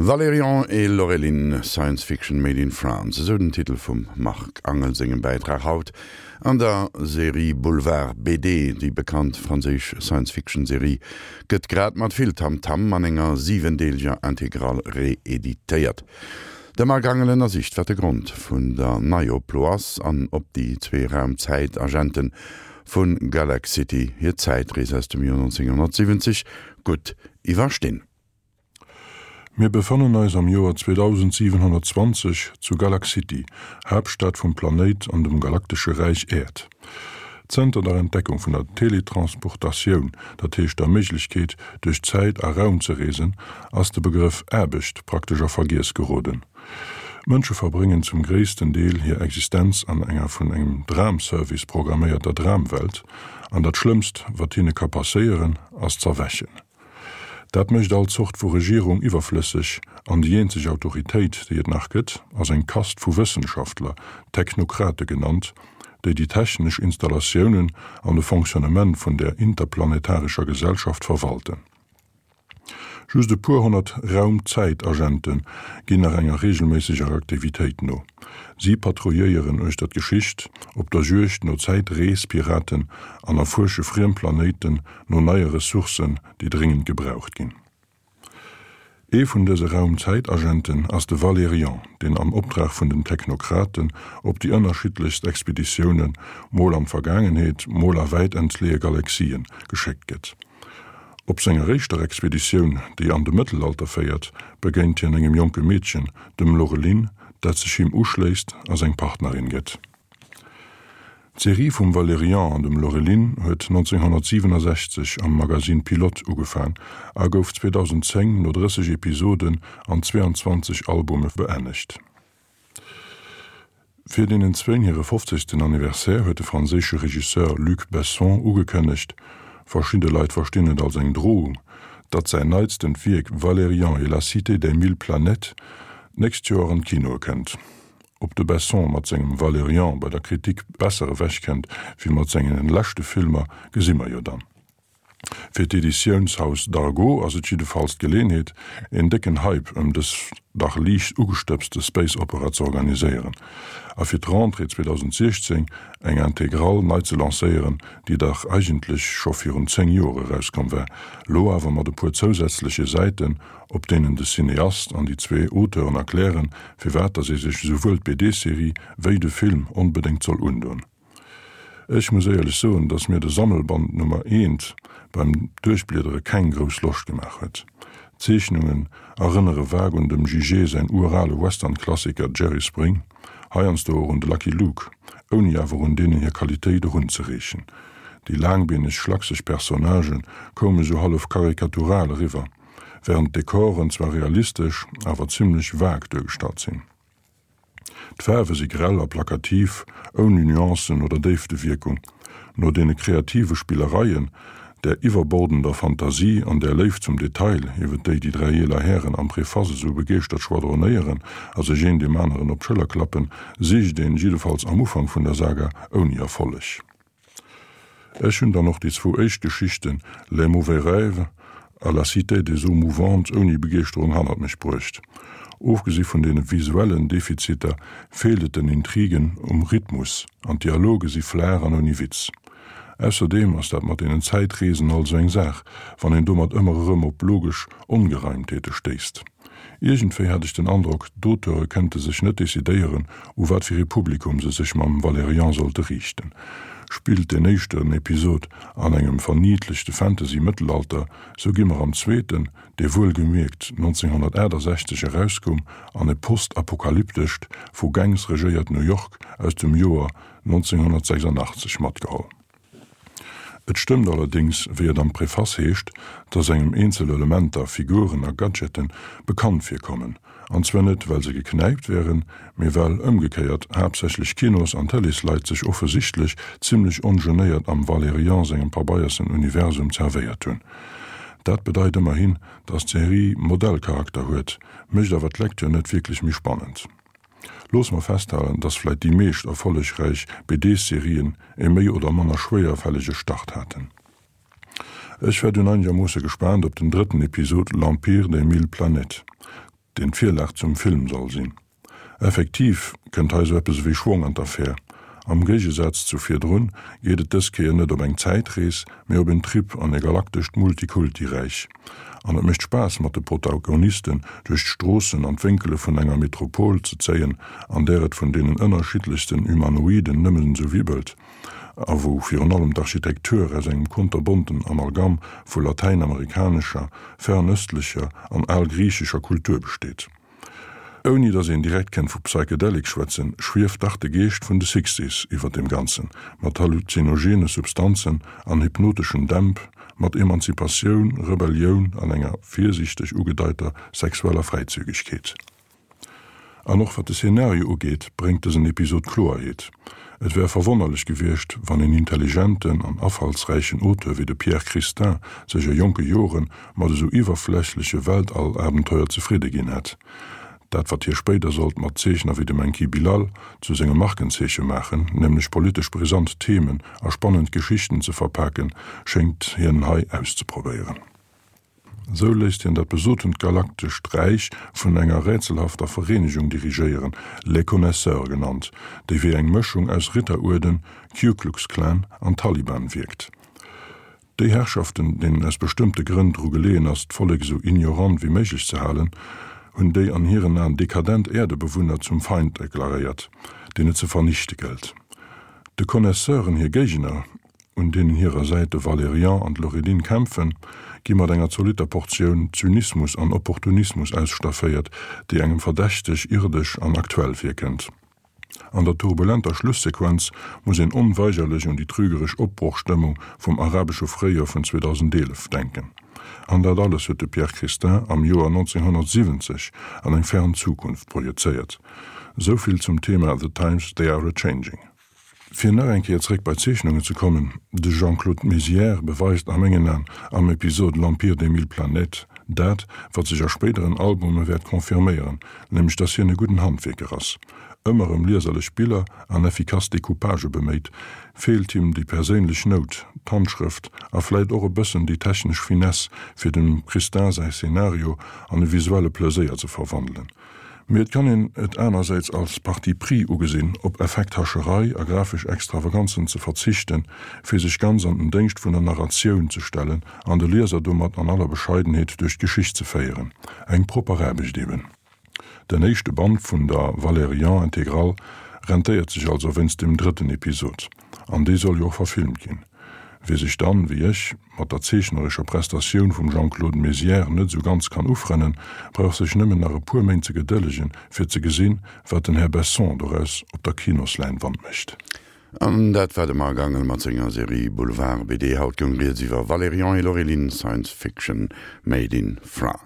Valérian et Laureline, Science Fiction made in France, esou den Titel vum Marc Angel sengem Bäitrag haut an der Serie Boulevard BD. Déi bekannt franséisch Science-Fiction-Serie gëtt grad mat vill Tamtam an enger siwendeeleger Intégrale reeditéiert. De Marc Angel ënnersicht, wat de Grond vun der Neioplo ass an ob déi zwee Raum-Zäit-Agente vu Galaxity hir Zäitrees aus dem Joer 1970 gutt iwwerstinn. Mir befannen eis am Joer 2720 zu Galaxity, Haaptstad vum Planéit an dem galaktesche Räich Äerd. Zënter der Entdeckung vun der Teletransportatioun, dat heescht der Méiglechkeet, duerch Zäit a Raum ze reesen, ass de Begrëff Aarbecht praktesch a Vergiess geroden. D'Mënsche verbréngen zum gréissten Deel hir Existenz an enger vun engem Dramservice programméierter Dramwelt, an dat Schlëmmst, wat hinne ka passéieren, ass z'erwächen. Dat mécht all Zort vu Regierung iwwerflësseg, an déi eenzeg Autoritéit, déi et nach gëtt, ass eng Kast vu Wëssenschaftler, Technokrate genannt, déi déi technesch Installatiounen an de Fonctionnement vun där interplanetarescher Gesellschaft verwalten. Just e puer honnert Raum-Zäit-Agente ginn nach enger reegelméisseger Aktivitéit no. Si patrouilléieren uechter d'Geschicht, op der Juegd no Zäitrees-Piraten an erfuersche friem Planéiten no neie Ressourcen, déi dréngend gebraucht ginn. Ee vun dëse Raum-Zäit-Agenten ass de Valerian, deen am Optrag vun den Technokraten op déi ënnerschiddlechst Expeditiounen, mol an d'Vergaangenheet, mol a wäit entleeë Galaxien, geschéckt gëtt. Op senger éischter Expeditioun, déi an de Mëttelalter féiert, begéint hien engem jonke Meedchen, dem Laureline, dat sech him uschléisst a seng Partnerin gëtt. D'Serie vum Valerian an dem Laureline huet 1967 am Magazine Pilote ugefaang a gouf 2010 no 30 Episoden an 22 Albume beennegt. Fir deenen zwéin hire fofzegsten Anniversaire huet de franséische Regisseur Luc Besson ugekënnegt, verschidde Leit verstinn et als eng Drohung, datt säin neitstent Wierk Valerian et la cité des mille planètes d'nächst Joer an d'Kinoe kënnt. Ob de Besson mat sengem Valerian bei der Kritik besser ewech kennt wéi mat sengen leschte Filmer, gesi mer jo dann. Fir d'Editiounshaus Dargaud ass et jiddefalls d'Geleenheet, een décken Hype ëm dës dach liicht ugestëbste Space Opera ze organiséieren a fir d'Rentrée 2016 eng Intégrale nei ze lancéieren, déi dach eigentlech scho virun 10 Joer erauskomm war, lo awer mat e puer zousätzleche Säiten op deenen de Cineast an déi zwee Auteuren erklären, firwat dass ee sech esouwuel d'BD-Serie wéi de Film onbedéngt soll undoen. Ech muss éierlech soen, dass mir de Sammelband Nummer eent beim Duerchbliedere keng grouss Loscht gemaach huet. D'Zeechnungen erënnere vague un dem Jigé säin urale Western-Klassiker Jerry Spring, heiansdo och un de Lucky Luke, ouni awer un deenen hir Qualitéit erunzereechen. Déi laangbeeneg, schlakseg Personnagë koume sou hallef karikatural eriwwer. Während d'Dekoren zwar realistesch, awer zimlech vague duergestallt sinn. D'Faarwe si grell a plakativ, ouni Nuancen oder Déiftewierkung. No deene kreative Spillereien, där iwwerbordender Fantasie an där Léift zum Detail, iwwer déi déi dräi eeler Hären am Preface esou begeeschtert schwadronéieren a sech een deem aneren op d'Schëller klappen, sicht een, jiddefalls am Ufank vun der Saga, ouni Erfolleg. Ech hunn dann och déi zwou éischt Geschichten Les mauvais rêves a La cité des eaux mouvantes ouni Begeeschterung hannert mech bruecht. Ofgesi vun deene visuellen Defiziter feelt et den Intrigen um Rhythmus an d'Dialoge si flaach an ouni Witz. Ausserdeem ass dat mat deenen Zäitreesen alt esou eng Saach, wann een domat ëmmer erëm op logesch Ongereimtheete stéisst. Iergendwéi hat ech den Androck, d'Auteure kënnte sech net decidéieren, u wat fir ee Publikum se sech mam Valerian sollte riichten. Spillt deen éischten Episod an engem verniedlechte Fantasy-Mëttelalter, sou gi mer am zweeten, dee wuelgemierkt 1968 erauskoum, an e postapokalyptescht, vu Gangs regéiert New York aus dem Joer 1986 matgeholl. Et stëmmt allerdéngs, wéi et am Preface heescht, dass engem eenzel Elementer, Figuren a Gadgeten bekannt virkommen, an zwar net well se geknäipt wären, mee well ëmgekéiert haaptsächlech Kinos an Tëleesleit sech offesichtlech zimmlech ongenéiert am Valerian sengem pabeiersen Universum zerwéiert hunn. Dat bedeit ëmmerhin, dass d'Serie Modellcharakter huet, mécht awer d'Lecture net wierklech méi spannend. Loosse mer festhalen, dass vläit déi meescht erfollegräich BD-Serien e méi oder manner schwéierfällege Start haten. Ech war dunn einegermoosse gespaant op den drëtten Episod L'Empire des mille planètes. deen d'Virlag zum Film soll sinn. Effektiv kënnt hei sou eppes ewéi Schwong an d'Affär. Am Géigesaz zu virdrun geet et dës Kéier net op eng Zäitrees, mee op en Trip an e galaktescht Multikulti-Räich. An et mécht Spaass mat de Protagonisten duerch d'Stroossen an d'Wénkele vun enger Metropol ze zéien, an där et vun deenen ënnerschiddlechsten Humanoiden nëmmen esou wibbelt a wou virun allem d'Architektur aus engem konterbonten Amalgam vu latäinamerikanescher, fernöstlecher an algriichescher Kultur besteet. Ouni datt een direkt kennt vu Psychedelic schwätzen, schwieft dach de Geescht vun de Sixties iwwer deem Ganzen, mat halluzinogene Substanzen an hypnoteschen Dämp, mat Emanzipatioun, Rebellioun an enger virsiichteg ugedeiter sexueller Fräizügegkeet. An och wat de Szenario ugeet, bréngt dësen Episod Kloerheet. Et wär verwonnerlech gewiescht, wann een intelligenten an afallsräichen Auteur wéi de Pierre Christin sech a jonke Jore mat esou iwwerflächleche Weltall-Abenteuer zefridde ginn hätt. Dat, wat hie spéider sollt mat Zeechner wéi dem Enki Bilal zu sengem Markenzeeche maachen, nämlech politesch brisant Themen a spannend Geschichten ze verpaken, schéngt hien hei auszeprobéieren. Esou léisst hien dat besotent galaktescht Räich vun enger rätselhafter Vereenegung dirigéieren, Les Connaisseurs genannt, déi wéi eng Mëschung aus Ritteruerden, Ku Klux Klan an Taliban wierkt. Déi Herrschaften, deenen aus bestëmmte Grënn dru geleeën ass, d'Vollek esou ignorant wéi méiglech ze halen, hunn déi an hiren Aen dekadent Äerdebewunner zum Feind deklaréiert, deen et ze vernichte gëllt. De Connaisseuren hir Géigner, un deenen hirer Säit de Valerian an d'Laureline kämpfen, gi mat enger zolitter Portioun Zynismus an Opportunismus ausstafféiert, déi engem verdächteg irdesch an aktuell virkënnt. An der turbulenter Schlussequenz muss een onweigerlech un déi trügeresch Opbrochstëmmung vum arabesche Fréijoer vun 2011 denken. An dat alles huet de Pierre Christin am Joer 1970 an eng fern Zukunft projezéiert. Souvill zum Thema The times they are a-changing. Fir nach eng Kéier zréck bei d'Zeechnungen ze kommen, De Jean-Claude Mézières beweist a mengen An am Episod L'Empire des mille planètes dat, wat sech a spéideren Albume wäert confirméieren, nämlech dass hien e gudden Handwierker ass. Ëmmer ëm lieserlech Biller an effikass Decoupagë beméit, feelt him déi perséinlech Nout, d'Handschrëft a vläit och e bëssen déi technesch Finesse, fir dem Christin säi Szenario an e visuelle Pleséier ze verwandelen. Mee et kann een et anersäits als Parti pris ugesinn, op Effekthascherei a grafesch Extravaganzen ze verzichten, fir sech ganz an den Déngscht vun der Narratioun ze stellen an de Lieser domat an aller Bescheidenheet duerch d'Geschicht ze féieren. Eng propper Aarbecht eben. Den éischte Band vun der Valérian Intégrale rentéiert sech also wéinst dem drëtten Episod. An dee soll jo och verfilmt ginn. Wie sech dann, wéi ech, mat der zeechnerescher Prestatioun vum Jean-Claude Mézières net esou ganz kann ufrënnen, brauch sech nëmmen nach e puer Méint ze gedëllegen, fir ze gesinn, wat den Här Besson doraus op der Kinosläinwand mécht. An dat war de Marc Angel mat senger Serie Boulevard BD. Haut goung rieds iwwer Valérian et Laureline, Science Fiction made in France.